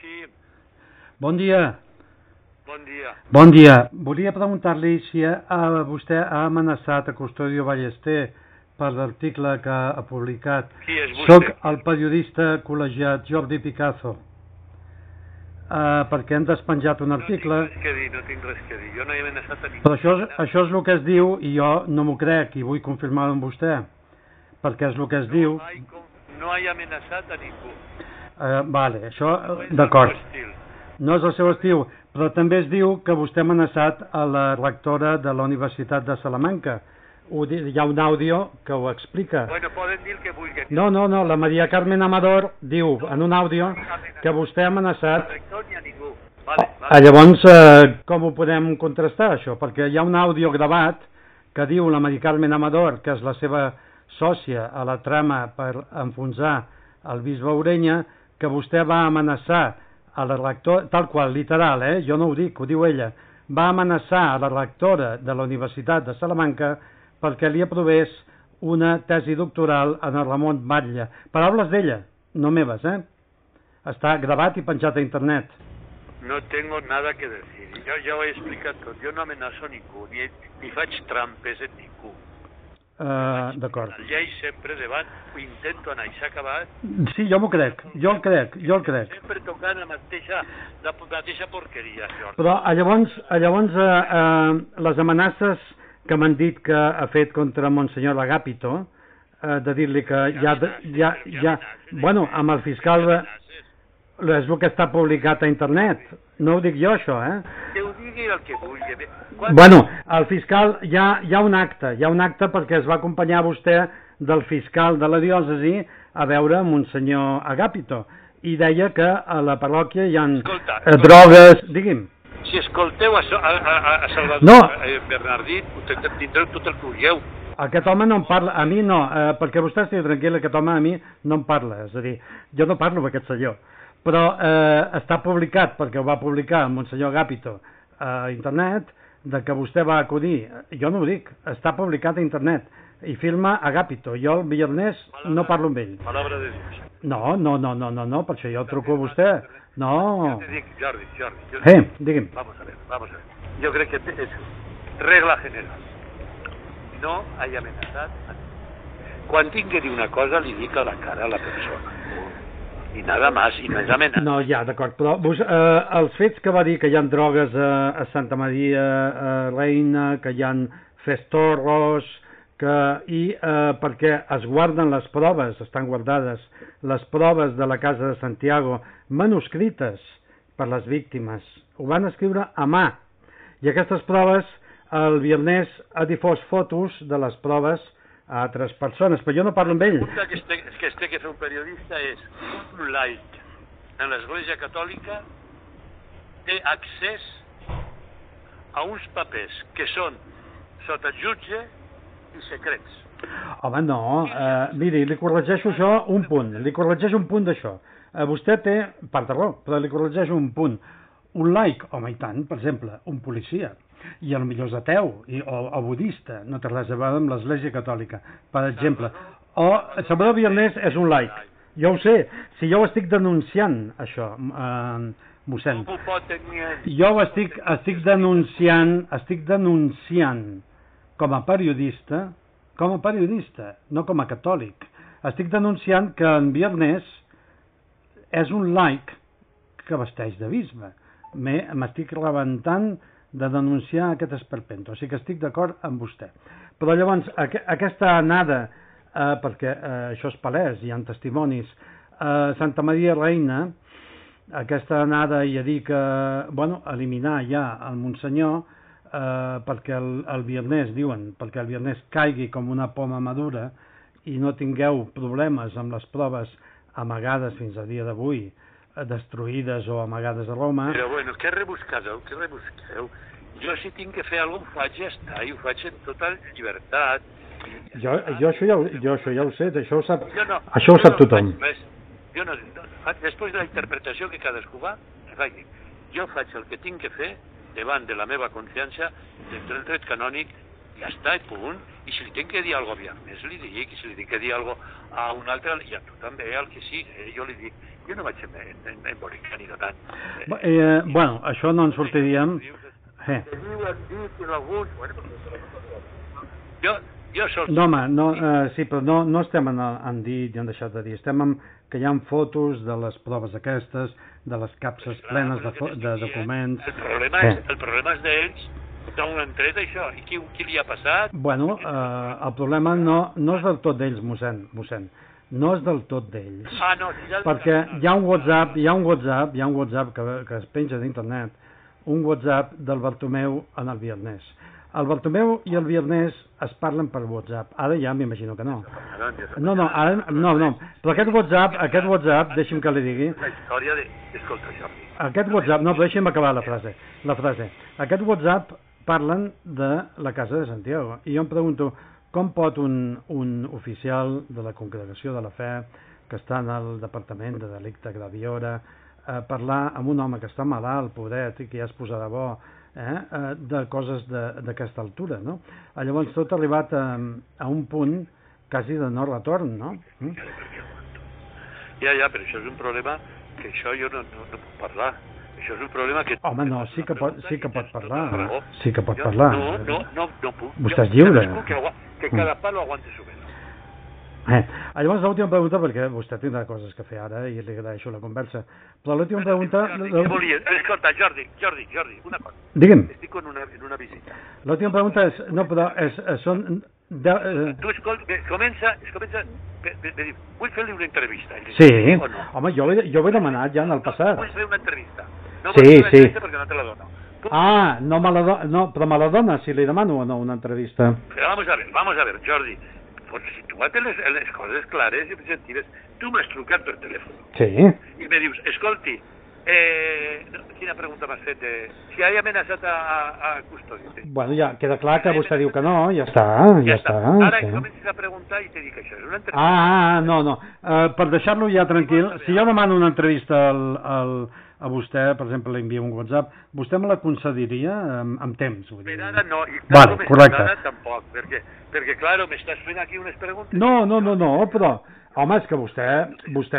Sí, Bon dia. bon dia. Bon dia. Volia preguntar-li si vostè ha amenaçat a Custodio Ballester per l'article que ha publicat. Qui és vostè? Soc el periodista col·legiat Jordi Picazo. Perquè hem despenjat un article. No tinc res que dir. Jo no he amenaçat a ningú. Però això és el que es diu i jo no m'ho crec i vull confirmar-ho amb vostè. Perquè és el que es diu. No he amenaçat a ningú. Vale, això, d'acord. No és el seu estil, però també es diu que vostè ha amenaçat a la rectora de la Universitat de Salamanca. Hi ha un àudio que ho explica. Bueno, poden dir el que vulguin. No, la Maria Carmen Amador diu en un àudio que vostè ha amenaçat. Ni a ningú. Llavors, com ho podem contrastar, això? Perquè hi ha un àudio gravat que diu la Maria Carmen Amador, que és la seva sòcia a la trama per enfonsar el bisbe Orenya, que vostè va amenaçar a la rectora, tal qual, literal, jo no ho dic, ho diu ella, va amenaçar a la rectora de la Universitat de Salamanca perquè li aprovés una tesi doctoral en el Ramon Batlle. Paraules d'ella, no meves, Està gravat i penjat a internet. No tengo nada que decir. Jo ja ho he explicat tot. Jo no amenaço ningú, ni faig trampes en ningú. D'acord. La llei sempre davant, ho intento anar i s'ha acabat. Sí, jo m'ho crec, jo el crec. Sempre tocant la mateixa porqueria, això. Però llavors les amenaces que m'han dit que ha fet contra Monsenyor Agapito, de dir-li que bueno, amb el fiscal és el que està publicat a internet, no ho dic jo això, Que ho digui el que vulgui. Bueno, el fiscal, hi ha un acte perquè es va acompanyar vostè del fiscal de la diòcesi a veure Monsenyor Agapito i deia que a la parròquia hi ha drogues, digui'm. Si escolteu a Salvador Bernardí, tindreu tot el que vulgueu. Aquest home no em parla, a mi no, perquè vostè estigui tranquil, aquest home a mi no em parla, és a dir, jo no parlo amb aquest senyor, però està publicat, perquè ho va publicar el Monsenyor Agapito a internet, de que vostè va acudir, jo no ho dic, està publicat a internet, i filma Agapito, jo el viernes no parlo amb ell. Palabra de Dios. No, per això jo truco a vostè. No. Jo te dic, Jordi. Digui'm. Vamos a ver. Jo crec que és regla general. No hagi amenaçat a ningú. Quan tinc que dir una cosa, li dic a la cara a la persona. I nada más, i no és amenaça. No, ja, d'acord, però els fets que va dir que hi ha drogues a Santa Maria Reina, que hi ha festorros, perquè es guarden les proves, estan guardades les proves de la Casa de Santiago, manuscrites per les víctimes, ho van escriure a mà, i aquestes proves, el viernes ha difós fotos de les proves a altres persones, però jo no parlo amb ell. La pregunta que es té que fer un periodista és: un laic en l'Església Catòlica té accés a uns papers que són sota jutge i secrets. Home, no, miri, li corregeixo això un punt, d'això. Vostè té part de raó, però li corregeixo un punt. Un laic, home, i tant, per exemple, un policia, i potser és ateu o budista, no té res a veure amb l'Església Catòlica, per exemple. O Salvador Bernardí és un laic. Jo ho sé, si jo ho estic denunciant, això, mossèn. Jo ho estic denunciant com a periodista, no com a catòlic. Estic denunciant que en Viernes és un laic que vesteix de bisbe. M'estic rebentant de denunciar aquest esperpento, o sigui que estic d'acord amb vostè. Però llavors, aquesta anada, perquè això és palès, hi ha testimonis, a Santa Maria Reina, aquesta anada i a dir que, bueno, eliminar ja el Monsenyor, perquè el Viernes, diuen, perquè el Viernes caigui com una poma madura i no tingueu problemes amb les proves amagades fins a dia d'avui, destruïdes o amagades a Roma. Però bueno, què rebusqueu? Jo si tinc que fer alguna cosa ho faig, ja està, i ho faig en tota llibertat. Jo això ja ho sé, això ho sap tothom. Després de la interpretació que cadascú va, jo faig el que tinc que fer davant de la meva consciència, entre el dret canònic ja està, i punt. I si li tinc que dir alguna cosa a Viernes, li dic, i si li tinc que dir alguna cosa a un altre, i a tu també, al que sigui, jo li dic, jo no vaig embolicar ni de tant. Bueno, això no en sortiríem... No, home, sí, però no estem en dit i en deixat de dir, estem en que hi ha fotos de les proves aquestes, de les capses plenes de documents... El problema és d'ells, d'on han tret això, i qui li ha passat? Bueno, el problema no és del tot d'ells, mossèn, no és del tot d'ells, perquè hi ha un WhatsApp que es penja d'internet, un WhatsApp del Bartomeu en el Viernes. El Bartomeu i el Viernes es parlen per WhatsApp. Ara ja m'imagino que no. No. Però aquest WhatsApp, deixi'm que li digui... La història de... Escolta, Jordi. Aquest WhatsApp... No, però deixi'm acabar la frase. Aquest WhatsApp parlen de la Casa de Santiago. I jo em pregunto, com pot un oficial de la Congregació de la Fe, que està en el Departament de Delicte Graviora, parlar amb un home que està malalt, pobret, i que ja es posarà bo, de coses d'aquesta altura, no? Llavors tot ha arribat a un punt quasi de no retorn, no? Ja, però això és un problema que això jo no puc parlar. Això és un problema que... Home, no, sí que pot parlar. Sí que pot parlar. No puc. Vostè és lliure. Que cada palo aguante su vela. Llavors l'última pregunta, perquè vostè tindrà coses que fer ara i li agraeixo la conversa, però l'última pregunta... Escolta, Jordi, una cosa. Digue'm. Estic en una visita. L'última pregunta és... No, però són... Tu comença... Vull fer-li una entrevista. Sí, home, jo ho he demanat ja en el passat. Vull fer una entrevista. No vull fer una entrevista perquè no te la dono. No, però me la dona si li demano o no una entrevista. Però vamos a ver, Jordi. Pues situa't les coses clares i objectives. Tu m'has trucat per telèfon. Sí. I me dius, escolti, quina pregunta m'has fet? Si ha amenaçat a custòdia. Bueno, ja queda clar que vostè diu que no, ja està. Ara comences a preguntar i te dic això, és una entrevista. No. Per deixar-lo ja tranquil, si jo demano una entrevista a vostè, per exemple, li envio un WhatsApp, vostè me la concediria amb temps? Per ara no, i correcte. Ara tampoc, perquè clar, m'estàs fent aquí unes preguntes... No, però, home, és que vostè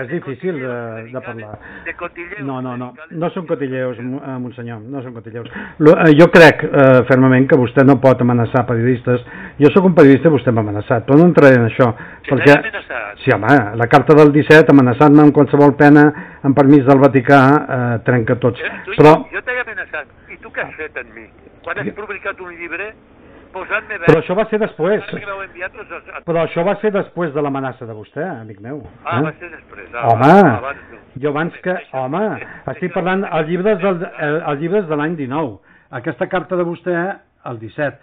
és difícil de parlar. De cotilleus. No són cotilleus, monsenyor, no són cotilleus. Jo crec fermament que vostè no pot amenaçar periodistes. Jo sóc un periodista i vostè m'ha amenaçat, però no entraré en això. Perquè, sí, home, la carta del 17, amenaçant-me amb qualsevol pena, amb permís del Vaticà, trenca tots. Jo t'he amenaçat, i tu què has fet en mi? Quan has publicat un llibre... Però això va ser després. Però això va ser després de l'amenaça de vostè, amic meu. Va ser després. Home, jo abans que... Home, estic parlant els llibres de l'any 19. Aquesta carta de vostè, el 17.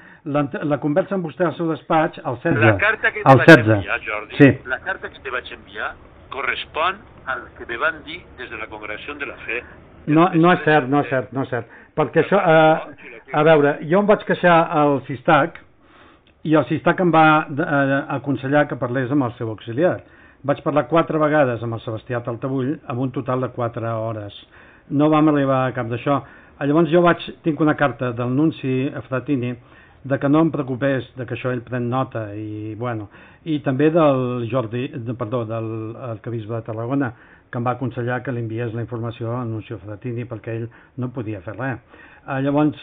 La conversa amb vostè al seu despatx, el 16. La carta que te vaig enviar, Jordi, sí. La carta que te vaig enviar correspon al que me van dir des de la Congregació de la Fe. No és cert. Perquè això, a veure, jo em vaig queixar al CISTAC i el CISTAC em va aconsellar que parlés amb el seu auxiliar. Vaig parlar 4 vegades amb el Sebastià Taltabull, amb un total de 4 hores. No vam arribar a cap d'això. Llavors jo tinc una carta del nunci Fratini de que no em preocupés, de que això ell pren nota, i també del arquebisbe de Tarragona, que em va aconsellar que li enviés la informació al nunci Fratini perquè ell no podia fer res. Llavors,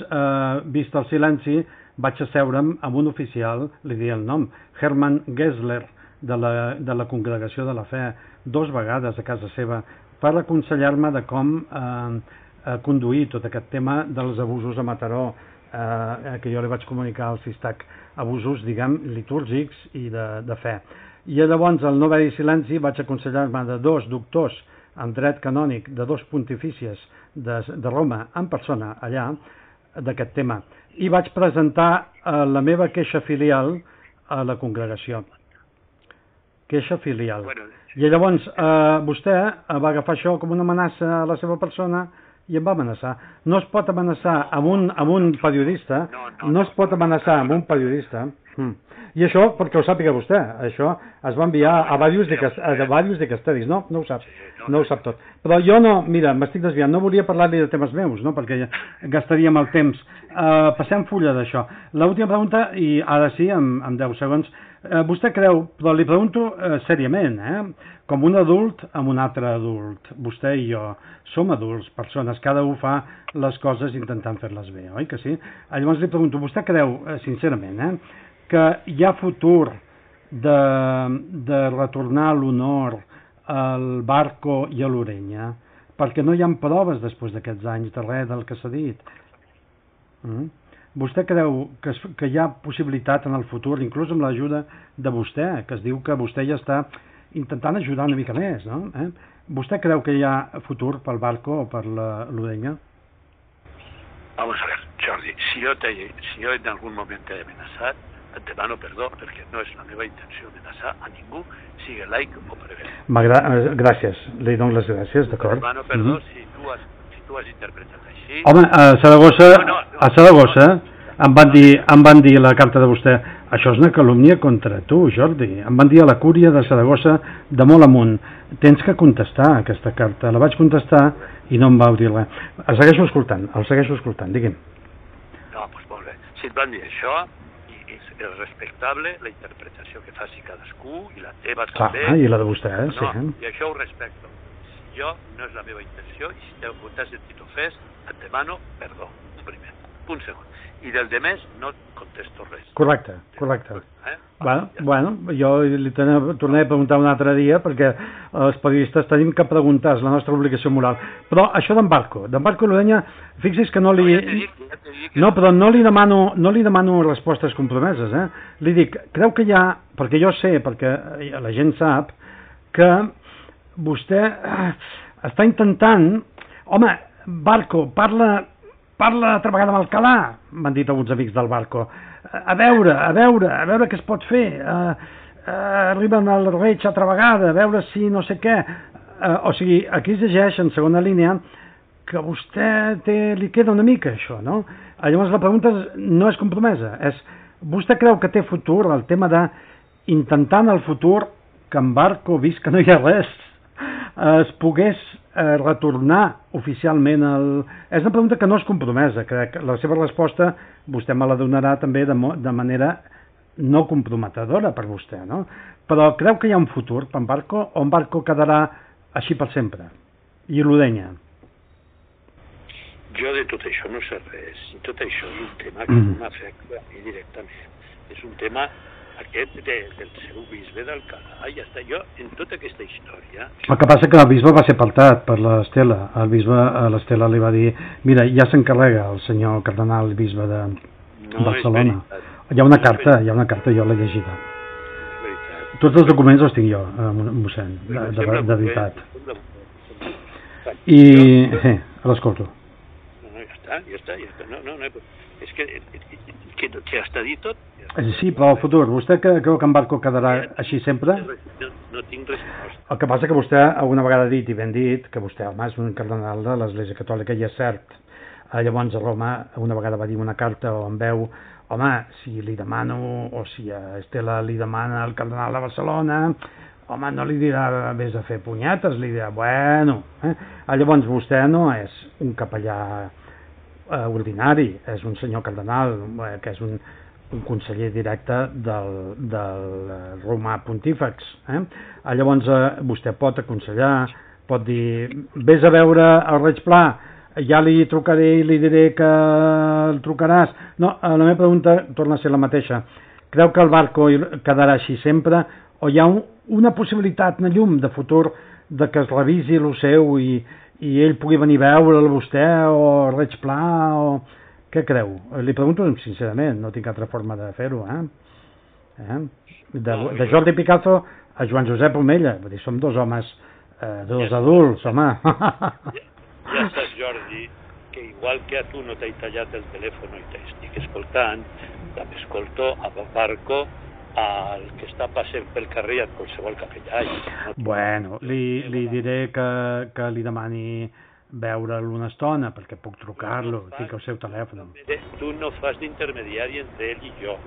vist el silenci, vaig asseure'm amb un oficial, li diré el nom, Hermann Gessler, de la Congregació de la Fe, 2 vegades a casa seva, per aconsellar-me de com conduir tot aquest tema dels abusos a Mataró, que jo li vaig comunicar al CISTAC, abusos, diguem, litúrgics i de fe. I llavors, al no haver-hi silenci, vaig aconsellar-me de 2 doctors en dret canònic, de 2 pontifícies de Roma, en persona, allà, d'aquest tema. I vaig presentar la meva queixa filial a la congregació. Queixa filial. I llavors, vostè va agafar això com una amenaça a la seva persona i em va amenaçar. No es pot amenaçar amb un periodista, no es pot amenaçar amb un periodista I això, perquè ho sàpiga vostè, això es va enviar a diversos dicasteris, no? No ho sap, no ho sap tot. Però jo no, mira, m'estic desviant, no volia parlar-li de temes meus, no? Perquè ja gastaríem el temps. Passem fulla d'això. L'última pregunta, i ara sí, en 10 segons, vostè creu, però li pregunto seriament, com un adult amb un altre adult, vostè i jo som adults, persones, cada un fa les coses intentant fer-les bé, oi que sí? Llavors li pregunto, vostè creu, sincerament, que hi ha futur de retornar l'honor al Barco i a l'Orenya, perquè no hi ha proves després d'aquests anys de res del que s'ha dit. Vostè creu que hi ha possibilitat en el futur, inclús amb l'ajuda de vostè, que es diu que vostè ja està intentant ajudar una mica més, no? ¿Vostè creu que hi ha futur pel Barco o per l'Orenya? Vamos a ver, Jordi, si jo en algun moment t'he amenaçat, et demano perdó, perquè no és la meva intenció amenaçar a ningú, sigui laic o prever. Gràcies, li dono les gràcies, d'acord. Et demano perdó si tu has interpretat així. Home, a Saragossa em van dir la carta de vostè, això és una calúmnia contra tu, Jordi. Em van dir a la cúria de Saragossa de molt amunt, tens que contestar aquesta carta. La vaig contestar i no em vau dir res. El segueixo escoltant, digui'm. No, doncs molt bé. Si et van dir això, és respectable la interpretació que faci cadascú i la teva també. Clar, i la de vostè, sí. I això ho respecto. Jo no és la meva intenció i si t'has sentit ofès, et demano perdó, un primer. Punt segon. I del demés no contesto res. Correcte. Bueno, jo li tornaré a preguntar un altre dia perquè els periodistes tenim que preguntar, és la nostra obligació moral. Però això d'en Barco i l'Orenya, fixi's que no li... No, però no li demano respostes compromeses, Li dic, creu que hi ha... Perquè jo sé, perquè la gent sap, que vostè està intentant... Home, Barco, parla altra vegada amb Alcalà, m'han dit alguns amics del Barco. A veure què es pot fer. Arriben al Reig altra vegada, a veure si no sé què. O sigui, aquí es llegeix en segona línia que a vostè li queda una mica això, no? Llavors la pregunta no és compromesa, és vostè creu que té futur el tema d'intentar en el futur que en Barco, vist que no hi ha res, es pogués retornar oficialment És una pregunta que no és compromesa, crec. La seva resposta vostè me la donarà també de manera no comprometedora per vostè, no? Però creu que hi ha un futur per en Barco o en Barco quedarà així per sempre? I l'Orenya? Jo de tot això no sé res. I tot això és un tema que m'afecta directament. És un tema aquest del seu bisbe d'Alcalà, ja està. Jo, en tota aquesta història... El que passa que el bisbe va ser apartat per l'Estela. El bisbe a l'Estela li va dir, mira, ja s'encarrega el senyor cardenal bisbe de Barcelona. Hi ha una carta, jo l'he llegida. Tots els documents els tinc jo, mossèn, de veritat. I... l'escolto. No, ja està. No, és que està dit tot. Sí, però el futur, vostè creu que en Barco quedarà així sempre? No tinc resposta. El que passa que vostè alguna vegada ha dit, i ben dit, que vostè, home, és un cardenal de l'Església Catòlica, i és cert. Llavors a Roma una vegada va dir una carta o en veu, home, si li demano, o si a Estela li demana el cardenal de Barcelona, home, no li dirà vés a fer punyetes, li dirà, bueno. Llavors vostè no és un capellà ordinari, és un senyor cardenal, que és un conseller directe del romà pontífex. Llavors vostè pot aconsellar, pot dir, vés a veure el Reig Pla, ja li trucaré i li diré que el trucaràs. No, la meva pregunta torna a ser la mateixa. Creu que el Barco quedarà així sempre o hi ha una possibilitat, una llum de futur de que es revisi el seu i ell pugui venir a veure'l vostè o el Reig Pla o... Què creu? Li pregunto sincerament, no tinc altra forma de fer-ho, De Jordi Picazo a Joan Josep Omella, vull dir, som dos homes, dos adults, home. Ja saps, Jordi, que igual que a tu no t'he tallat el telèfon i t'estic escoltant, també escolto a Barco, el que està passant pel carrer a qualsevol capellà. Bueno, li diré que li demani veure'l una estona, perquè puc trucar-lo, tinc el seu telèfon. Tu no fas d'intermediari entre ell i jo.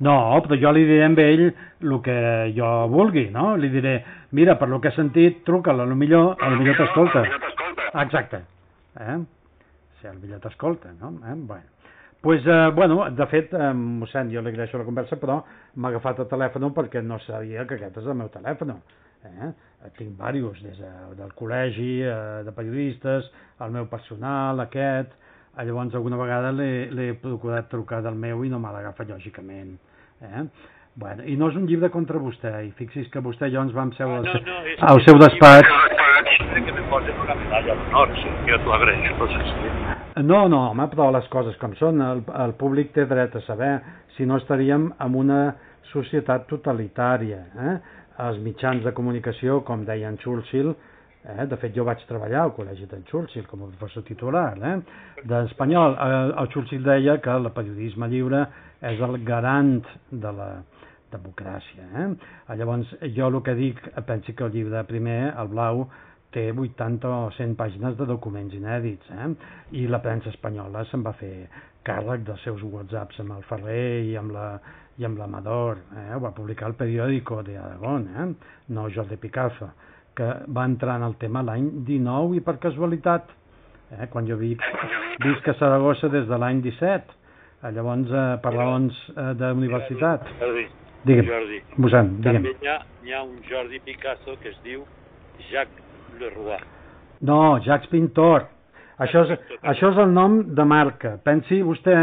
No, però jo li diré a ell el que jo vulgui, no? Li diré, mira, per lo que he sentit, truca'l, a lo millor t'escolta. Exacte. Sí, a lo millor t'escolta, no? Bueno. Pues, de fet, mossèn, jo li agraeixo la conversa, però m'ha agafat el telèfon perquè no sabia que aquest és el meu telèfon. Tinc diversos, des del col·legi, de periodistes, el meu personal, aquest. Llavors, alguna vegada l'he procurat trucar del meu i no me l'agafa, lògicament. Bueno, i no és un llibre contra vostè, i fixi's que vostè i jo ens vam seure al seu despatx. Que me posen una medalla d'honor, sí, jo t'ho agraeixo. No, home, però les coses com són, el públic té dret a saber, si no estaríem en una societat totalitària. Els mitjans de comunicació, com deia en Churchill, de fet jo vaig treballar al col·legi d'en Churchill com a professor titular d'espanyol. El Churchill deia que el periodisme lliure és el garant de la democràcia. Llavors jo el que dic, pensi que el llibre primer, el blau, té 80 o 100 pàgines de documents inèdits, i la premsa espanyola se'n va fer càrrec dels seus whatsapps amb el Ferrer i amb l'Amador, ho va publicar el Periódico de Aragón, no Jordi Picazo, que va entrar en el tema l'any 19 i per casualitat, quan jo visc a Saragossa des de l'any 17, llavors per raons d'universitat. Jordi, mossèn, també hi ha un Jordi Picasso que es diu Jacques Leroy. No, Jacques Pintor. Això és el nom de marca. Pensi vostè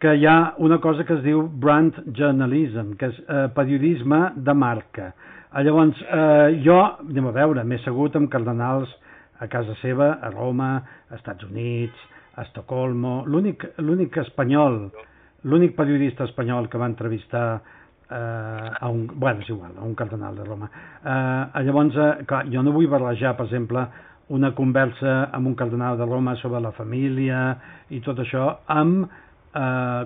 que hi ha una cosa que es diu brand journalism, que és periodisme de marca. Llavors, jo, anem a veure, m'he assegut amb cardenals a casa seva, a Roma, a Estats Units, a Estocolmo. L'únic espanyol, l'únic periodista espanyol que va entrevistar és igual, a un cardenal de Roma. Llavors, clar, jo no vull barrejar, per exemple, una conversa amb un cardenal de Roma sobre la família i tot això amb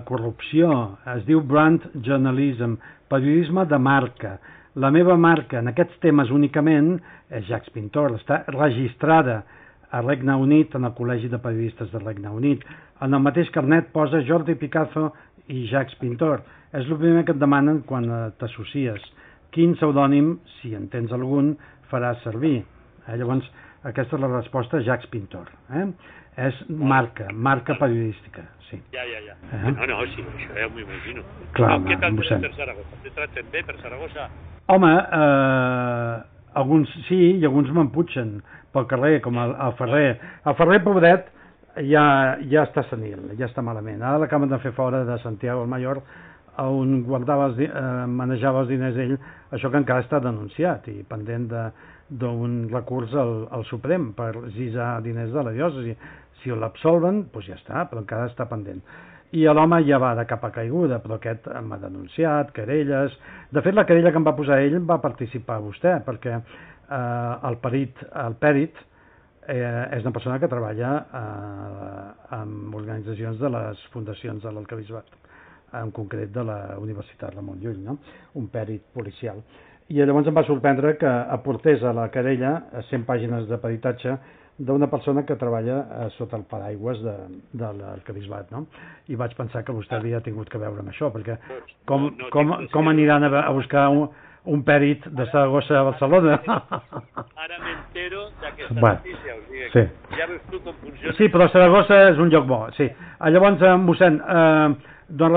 corrupció. Es diu brand journalism, periodisme de marca. La meva marca en aquests temes únicament és Jacques Pintor, està registrada a Regne Unit, en el Col·legi de Periodistes del Regne Unit. En el mateix carnet posa Jordi Picazo i Jacques Pintor. És el primer que et demanen quan t'associes. Quin pseudònim, si en tens algun, faràs servir? Llavors, aquesta és la resposta a Jacques Pintor. És marca periodística. Sí. Ja. No, sí, això ja m'ho imagino. Clar, què tal per Saragossa? Te traten bé per Saragossa? Home, alguns sí i alguns m'emputxen pel carrer, com el Ferrer. El Ferrer, pobret, ja està senil, ja està malament. Ara l'acaben de fer fora de Santiago del Mayor, on manejava els diners ell, això que encara està denunciat i pendent d'un recurs al Suprem per gisar diners de la diòcesi. Si l'absolven, doncs ja està, però encara està pendent. I l'home ja va de capa caiguda, però aquest m'ha denunciat, querelles. De fet, la querella que em va posar ell va participar vostè, perquè el pèrit és una persona que treballa amb organitzacions de les fundacions de l'Arquebisbat, en concret de la Universitat Ramon Llull, no? Un pèrit policial. I llavors em va sorprendre que aportés a la querella 100 pàgines de peritatge d'una persona que treballa sota el paraigües de l'Arquebisbat, no? I vaig pensar que vostè havia tingut que veure amb això, perquè com aniran a buscar un pèrit de Saragossa a Barcelona? Ara m'entero d'aquesta notícia, o sigui, sí. Ja veus tu com funciona. Sí, però Saragossa és un lloc bo, sí. Llavors, mossèn, doncs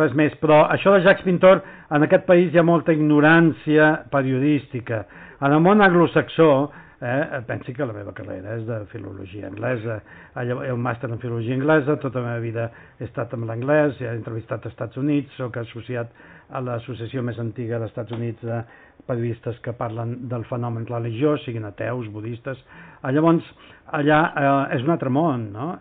res més, però això de Jacques Pintor, en aquest país hi ha molta ignorància periodística. En el món anglosaxó, pensi que la meva carrera és de filologia anglesa, un màster en filologia anglesa, tota la meva vida he estat amb l'anglès, he entrevistat als Estats Units, soc associat a l'associació més antiga dels Estats Units de periodistes que parlen del fenomen religiós, siguin ateus, budistes. Llavors, allà és un altre món, no?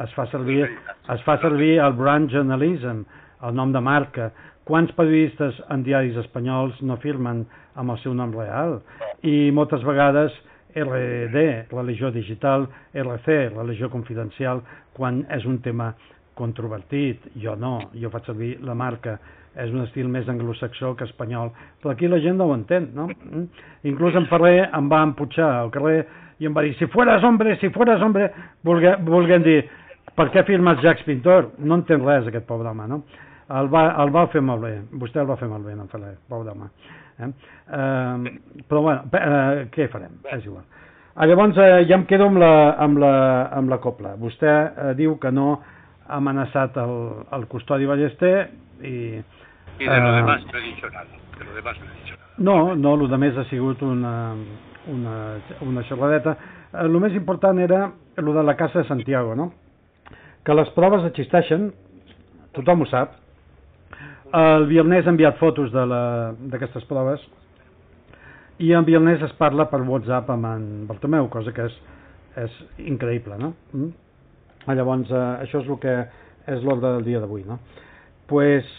Es fa servir el brand journalism, el nom de marca. Quants periodistes en diaris espanyols no firmen amb el seu nom real? I moltes vegades RD, religió digital, RC, religió confidencial, quan és un tema controvertit. Jo no, jo faig servir la marca és un estil més anglosaxó que espanyol, però aquí la gent no ho entén, no? Inclús en Ferrer em va emputxar al carrer i em va dir, si fueras hombre, volguem dir, per què firmes Jacques Pintor? No entén res aquest pobre home, no? El va fer molt bé, vostè el va fer molt bé, en Ferrer, pobre home. Però bueno, què farem? És igual. Llavors ja em quedo amb la copla. Vostè diu que no ha amenaçat el custodi Ballester i de lo demás no he dicho nada. No, lo demés ha sigut una xerradeta. El més important era el de la Casa de Santiago, no? Que les proves existeixen, tothom ho sap. El Viernes ha enviat fotos d'aquestes proves i en Viernes es parla per WhatsApp amb en Bartomeu, cosa que és increïble, no? Llavors, això és el que és l'ordre del dia d'avui, no? Pues,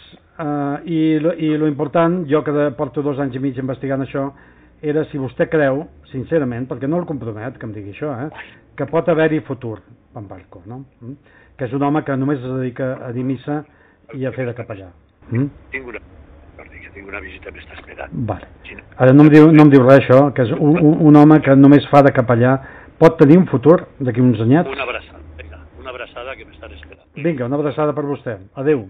i lo important, jo que porto 2 anys i mig investigant això, era si vostè creu, sincerament, perquè no el compromet que em digui això, que pot haver-hi futur en Barco, no? Que és un home que només es dedica a dir missa i a fer de capellà. Tinc una visita m'està esperant. Vale. Ara no em diu res això, que és un home que només fa de capellà, pot tenir un futur d'aquí uns anyets? Una abraçada, vinga, una abraçada que m'estan esperant. Vinga, una abraçada per vostè. Adéu.